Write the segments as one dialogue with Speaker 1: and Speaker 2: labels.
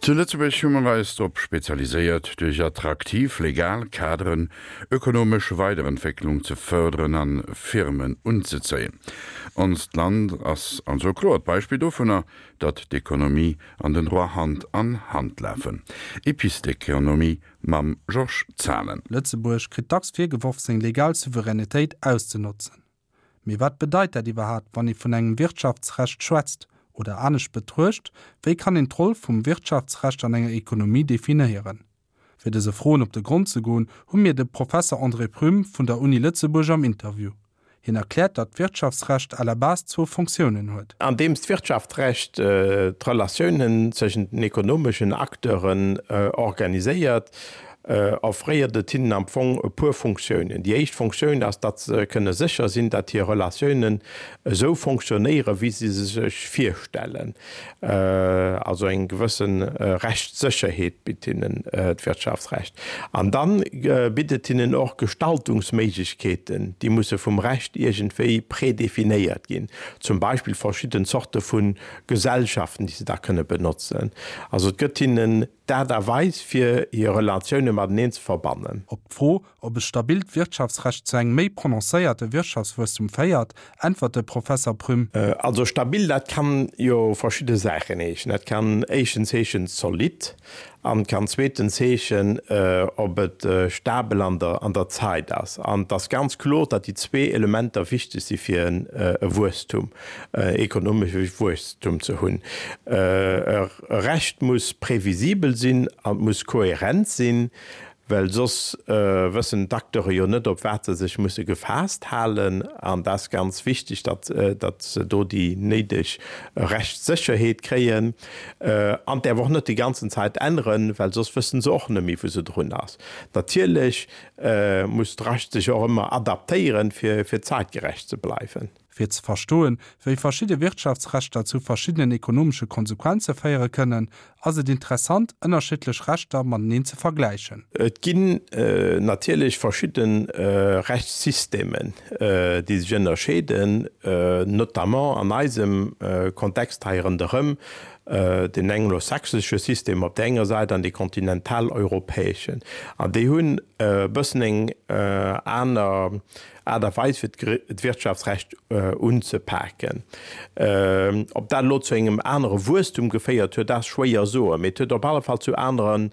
Speaker 1: Zu Lëtzebuerg hu mer eis drop spezialiséiert, duerch attraktiv legal Kaderen ökonomesch Weiderentwécklung ze fërderen an Firmen unzezéien. Onst Land ass also e kloert Beispill dovunner, datt d'Ekonomie an den Droit Hand an Hand lafen. Epistekonomie mam Georges Zahlen.
Speaker 2: Lëtzebuerg kritt dacks virgeworf, seng legal Souveränitéit auszenotzen. Mee wat bedeit dat iwwerhaapt, wann ee vun engem Wirtschaftsrecht schwätzt? Oder anescht betruecht, wéi kann een d'Roll vum Wirtschaftsrecht an enger Ekonomie definéieren? Fir dëse Froen op de Grond ze goen, hu mir de Professer André Prüm vun der Uni Lëtzebuerg am Interview. Hien erkläert, datt d'Wirtschaftsrecht à la base zwou Fonctiounen huet.
Speaker 3: Andeems d'Wirtschaftsrecht d'Relatiounen tëschent den ekonomeschen Acteuren organiséiert, offréiert et hinnen am Fong e puer Funktiounen. Déi éischt Funktioun ass, datt se kënne sécher sinn, datt hir Relatiounen esou fonctionnéieren, wéi se se sech virstellen. Also eng gewësse Rechtssécherheet bitt hinnen d'Wirtschaftsrecht. An da bitt et hinnen och Gestaltungsméiglechkeeten, déi musse vum Recht iergendwéi prédéfinéiert ginn, zum Beispill verschidden Zorte vu Gesellschaften, déi se da kënne benotzen. Also et gëtt hinnen D'Aart a Weis, fir hir Relatioune mateneen ze verbannen.
Speaker 2: Op d'Fro, ob e stabilt Wirtschaftsrecht zu engem méi prononcéierte Wirtschaftswuesstum féiert, äntwert de Professer Prüm.
Speaker 3: Also stabil, dat kann jo verschidde Saachen heeschen. Dat kann éischtens heeschen zolidd an kann zweetens heeschen, ob et stabel an der an der Zait ass. An et ass ganz kloer, datt déi zwee Elementer wichteg si fir e Wuesstum. ekonomesche Wuesstum ze hunn. E Recht muss previsibel sinn an muss kohärent sinn, well soss wëssen d'Acteure jo net, op wat se sech musse gefaasst halen. An dat ass ganz wichteg, datt se do déi néideg Rechtssécherheet kréien. An däerf och net déi ganzen Zäit änneren, well soss wësse se och net méi, wou se drun ass. Natierlech muss d'Recht sech och ëmmer adaptéieren, fir zäitgerecht ze bleiwen.
Speaker 2: Fir ze verstoen, wéi verschidde Wirtschaftsrechter zu verschiddenen ekonomesche Konsequenze féiere kënnen, ass et interessant, ënnerschiddlech Rechter mateneen ze vergläichen.
Speaker 3: Et ginn natierlech verschidde Rechtssystemen, déi sech ënnerscheeden, notamment an eisem Kontext hei ronderëm, den anglosächsesche System op där enger Säit an dee kontinentaleuropäeschen. An déi hunn e bëssen eng aner Aart a Weis fir d'Wirtschaftsrecht unzepaken. Ob dat elo zu engem anere Wuesstum geféiert huet, dat ass schwéier soen, mee et huet op alle Fall zu anere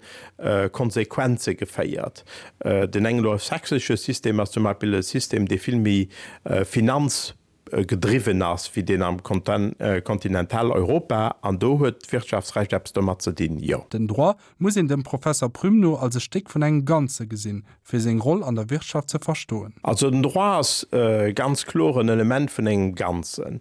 Speaker 3: Konsequenze geféiert. Den anglosächsesche System ass zum Beispill e System, dee vill méi finanzgedriwwen ass wéi deen am Kontinentaleuropa, an do huet d'Wirtschaftsrecht eppes domat ze dinn, jo.
Speaker 2: Den Droit muss een dem Professer Prüm no als e Stéck vun engem Ganze gesinn, fir seng Roll an der Wirtschaft ze verstoen.
Speaker 3: Also den Droit ass ganz kloer en Element vun engem Ganzen.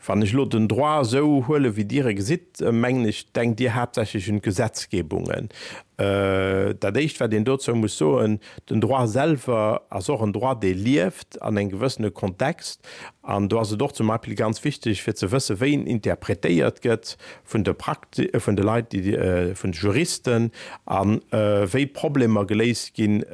Speaker 3: Wann ech elo den Droit esou huelen, wéi Dir e gesitt, mengen ech, denkt Dir haaptsächlech un d'Gesetzgebungen. Dat Éischt, wat een dozou muss soen, Den Droit selwer ass och en Droit, dee lieft an engem gewëssene Kontext. An do ass et och zum Beispill ganz wichteg, fir ze wëssen, wéi en interpretéiert gëtt vun de Prakti-, vun de Leit, déi, vun de Juristen, a wéi Problemer geléist ginn,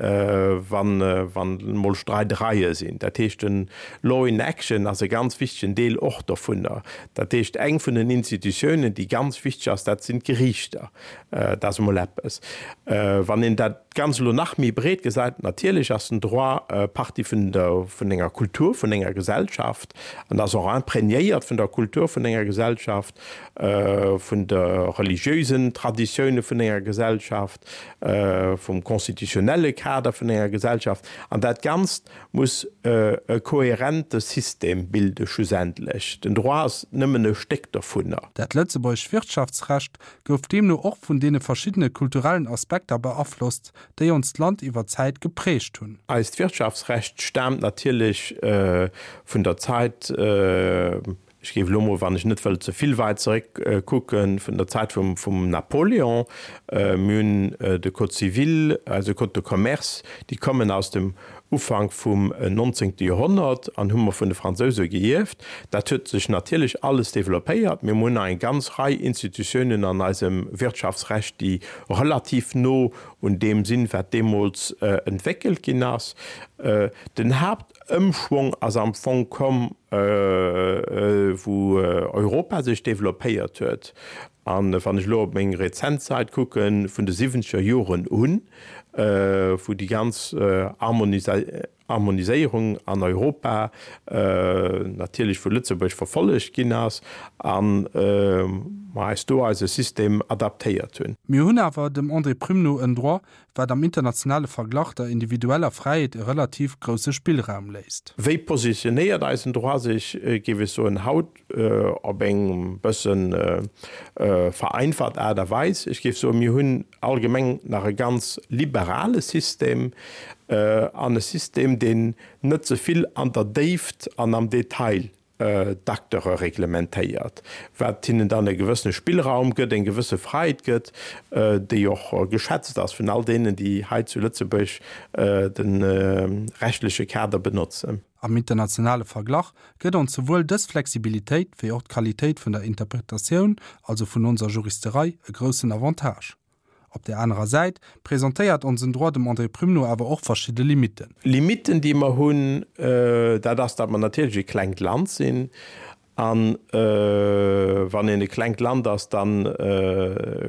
Speaker 3: wann, wann emol Streidereie sinn. Dat heescht, den Law in action ass e ganz wichtegen Deel och dovunner. Dat heescht, eng vun den Institutiounen, déi ganz wichteg ass, dat sinn d'Geriichter. Dat ass emol eppes. Wann een dat Ganzt elo nach méi breet gesäit, natierlech ass den Droit Partie vun der, vun enger Kultur vun enger Gesellschaft an ass och imprégnéiert vun der Kultur vun enger Gesellschaft, vun de religiösen Traditioune vun enger Gesellschaft, vum constitutionnelle Kader vun enger Gesellschaft. An dat Ganzt muss e kohärente System bilde schlussendlech. Den Droit ass nëmmen e Stéck dovunner.
Speaker 2: Dat lëtzebuergescht Wirtschaftsrecht gouf deemno och vun deene verschiddene kulturellen Aspekter beaflosst, déi onst Land iwwer d'Zäit geprägt hunn.
Speaker 3: Eist Wirtschaftsrecht staamt natierlech vun der Zait, ech géif elo mol, wann ech net wëll ze vill weit zeréck kucken, vun der Zäit vum Napoléon. Mir hunn de Code civil, eise Code de commerce, déi kommen aus dem Ufank vum nonzéngte Joerhonnert an hu mer vun de Fransouse geierft. Dat huet sech natierlech alles développéiert. Mir hunn nach eng ganz Rei Institutiounen an eisem Wirtschaftsrecht, déi relativ no un deem sinn, wat deemools entwéckelt ginn ass. Den Haaptëmschwong ass am Fong komm. wou Europa sech développéiert huet, an wann ech elo op meng rezent Zait kucken, vun de siwwenzeger Joren un, wou déi ganz Harmoniséierung an Europa natierlech vu Lëtzebuerg verfollegt ginn ass a mer eis do eise System adaptéiert hunn.
Speaker 2: Mir hunn awer, dem André Prüm no, en Droit, wat am internationale Verglach der individueller Fräiheet e relativ grousse Spillraum léisst.
Speaker 3: Wéi positionéiert eisen Droit sech, géif ech soen, haut op eng bësse vereinfacht Aart a Weis? Ech géif soen, mir hunn allgemeng nach e ganz liberale System an e System, deen net ze vill an der Déift an am Detail d'Acteure reglementéiert, wat hinnen dann e gewëssene Spillraum gëtt, eng gewësse Fräiheet gëtt, déi och geschätzt ass vun all deenen, déi hei zu Lëtzebuerg de rechtleche Kader benotzen.
Speaker 2: Am internationale Verglach gëtt ons souwuel dës Flexibilitéit wéi och d'Qualitéit vun der Interpretatioun, also vun onser Juristerei, e groussen Avantage. Op där anerer Säit presentéiert onsen Droit dem André Prüm no awer och verschidde Limitten.
Speaker 3: Limitten, déi mer hunn, dat ass, datt mer natierlech e klengt Land sinn. A wann een e klengt Land ass, da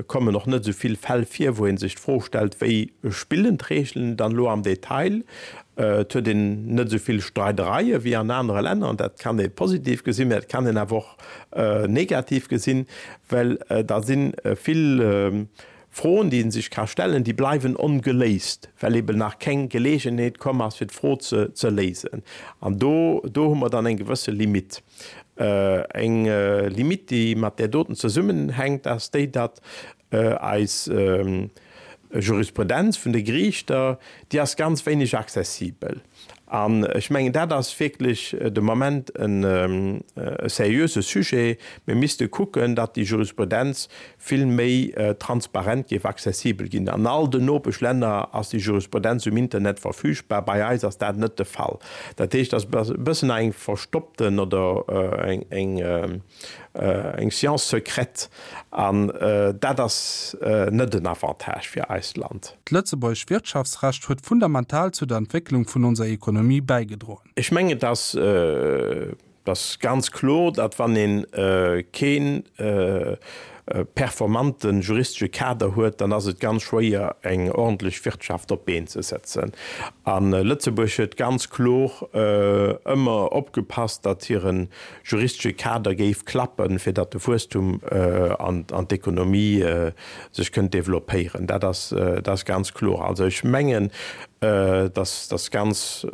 Speaker 3: kommen och net esou vill Fäll vir, wou ee sech d'Fro stellt, Wéi spillen d'Reegelen dann elo am Detail? Et huet een net esou vill Streidereie wéi an anere Länner. An dat kann ee positiv gesinn, mä et kann een awer och negativ gesinn, well da si vill Froen, déi ee sech ka stellen, déi bleiwen ongeléist, well eben nach keng Geleegenheet komm ass, fir d'Fro ze léisen. An do, do hu mer dann eng gewësse Limite. Eng Limite, déi mat där doten zesummenhänkt, ass déi, datt eis Jurisprudenz vun de Geriichter, déi ass ganz wéineg accessibel. An ech mengen, dat ass wierklech de Moment e seriöse Sujet. Mir misste kucken, datt déi Jurisprudenz vill méi transparent géif accessibel ginn. An all den Nopeschlänner ass déi Jurisprudenz um Internet verfügbar, bei eis ass dat net de Fall. Dat heescht, et ass e bëssen eng verstoppten oder eng, Eng Science secrète, an dat ass net en Avantage fir eist Land.
Speaker 2: D'lëtzebuergesch Wirtschaftsrecht huet fundamental zu der Entwécklung vun onser Ekonomie bäigedroen.
Speaker 3: Ech mengen, et ass, et ass ganz kloer, datt wann ee kee performante juristesche Kader huet, dann ass et ganz schwéier eng ordentlech Wirtschaft op d'Been ze setzen. A Lëtzebuerg huet ganz kloer ëmmer opgepasst, datt hire juristesche Kader géif klappen, fir datt de Wuesstum an d'Ekonomie sech kënnt développéieren. Dat ass, dat ass ganz kloer. Also ech mengen, dass ass ganz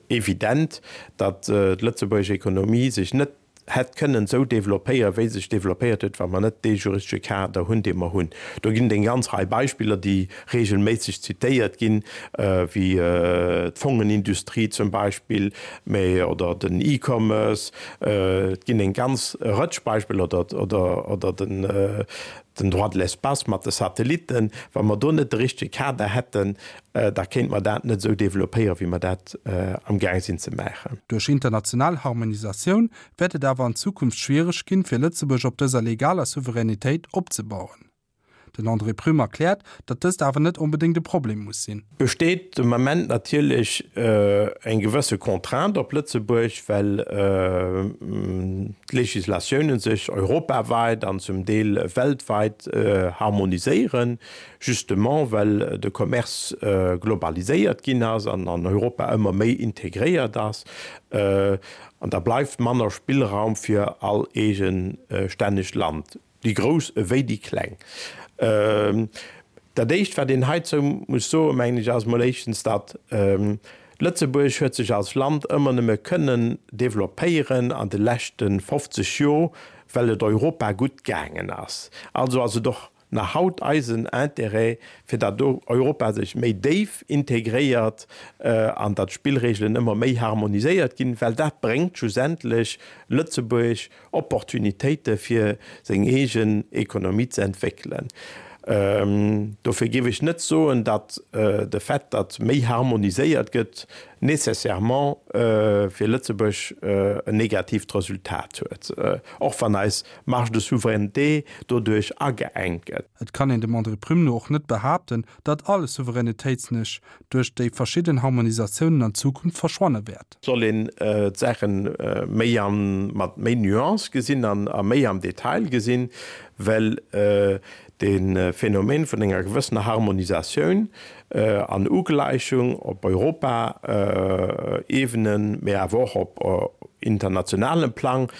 Speaker 3: evident, datt d'lëtzebuergesch Ekonomie sech net hätt kënnen esou développéieren, wéi se sech développéiert huet, wa mer net dee juristesche Kader hunn, dee mer hunn. Do ginn et eng ganz Rei Beispiller, déi regelméisseg zitéiert ginn, wéi d'Fongenindustrie zum Beispill, mä oder den E-Commerce, et ginn eng ganz Rëtsch Beispiller, oder, oder, oder den, den Droit de l'espace mat de Satellitten. Wa mer do net de richtege Kader hätten, da kéinte mer dat net esou développéieren, wéi mer dat amgaang sinn ze maachen.
Speaker 2: Duerch international Harmonisatioun wäert et awer an Zukunft schwiereg ginn, fir Lëtzebuerg op dëser legaler Souveränitéit opzebauen. Den André Prüm erkläert, datt dëst awer net onbedéngt e Problem muss sinn.
Speaker 3: Besteet de Moment natierlech eng gewësse Contrainte op Lëtzebuerg, well d'Législatiounen sech europaweit an zum Deel weltweit harmoniséieren, justement well de Commerce globaliséiert ginn ass an an Europa ëmmer méi integréiert ass. An da bleift manner Spillraum fir all eegestännegt Land. Déi Grouss ewéi déi Kleng. Dat Éischt, wat een heizou muss soen, mengen ech, ass emol éischtens, datt Lëtzebuerg huet sech als Land ëmmer nëmme kënnen développéieren an de leschte 50 Jor, well et Europa gutt gaangen ass. Also ass et och nach haut eisen Intérêt, fir datt Europa sech méi déif integréiert an datt d'Spillregelen ëmmer méi harmoniséiert ginn, well dat bréngt schlussendlech Lëtzebuerg Opportunitéite fir seng eegen Ekonomie ze entwéckelen. Dofir géif ech net soen, datt de Fait, datt méi harmoniséiert gëtt, nécessairement fir Lëtzebuerg en negatiivt Resultat huet, och wann eis Marge de souveraineté doduerch ageengt gëtt.
Speaker 2: Et kann een dem André Prüm no och net behaapten, datt all Souveränitéitsnisch duerch déi verschidden Harmonisatiounen an Zukunft verschwanne wäert.
Speaker 3: Soll een d'Saache méi an mat méi Nuance gesinn an a méi am Detail gesinn, well de Phänomen vun enger gewëssener Harmonisatioun an Ugläichung op Europa-Ebene, mee awer och op internationalem Plang,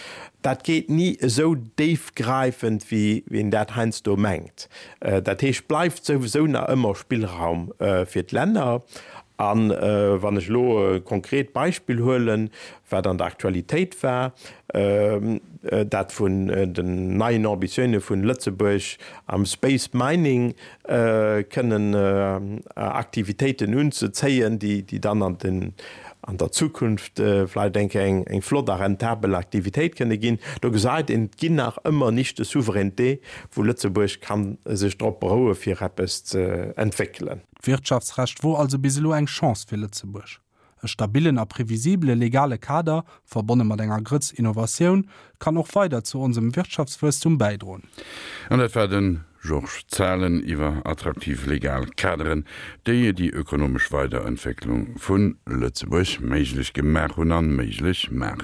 Speaker 3: dat geet ni esou déifgräifend, wéi een dat heiansdo mengt. Dat heescht, bleift souwisou nach ëmmer Spillraum fir d'Länner. A wann ech elo e konkret Beispill huelen, wat an der Aktualitéit war, dat vun den neien Ambitioune vun Lëtzebuerg am Space Mining kënnen Aktivitéiten unzezéien, déi dann an den an der Zukunft vläicht eng Kéier eng flott a rentabel Aktivitéit kënne ginn. Do gesäit een, et ginn nach ëmmer Niches de souveraineté, wou Lëtzebuerg ka sech drop beroue fir eppes ze entwéckelen.
Speaker 2: D'Wirtschaftsrecht wor also bis elo eng Chance fir Lëtzebuerg. E stabillen a previsibele legale Kader, verbonne mat enger Grëtz Innovatioun, kann och weider zu onsem Wirtschaftswuesstum bäidroen.
Speaker 1: An dat war de Georges Zahlen iwwer attraktiv legal Kaderen, déi déi ökonomesch Weiderentwécklung vu Lëtzebuerg méiglech gemaach hunn a méiglech maachen.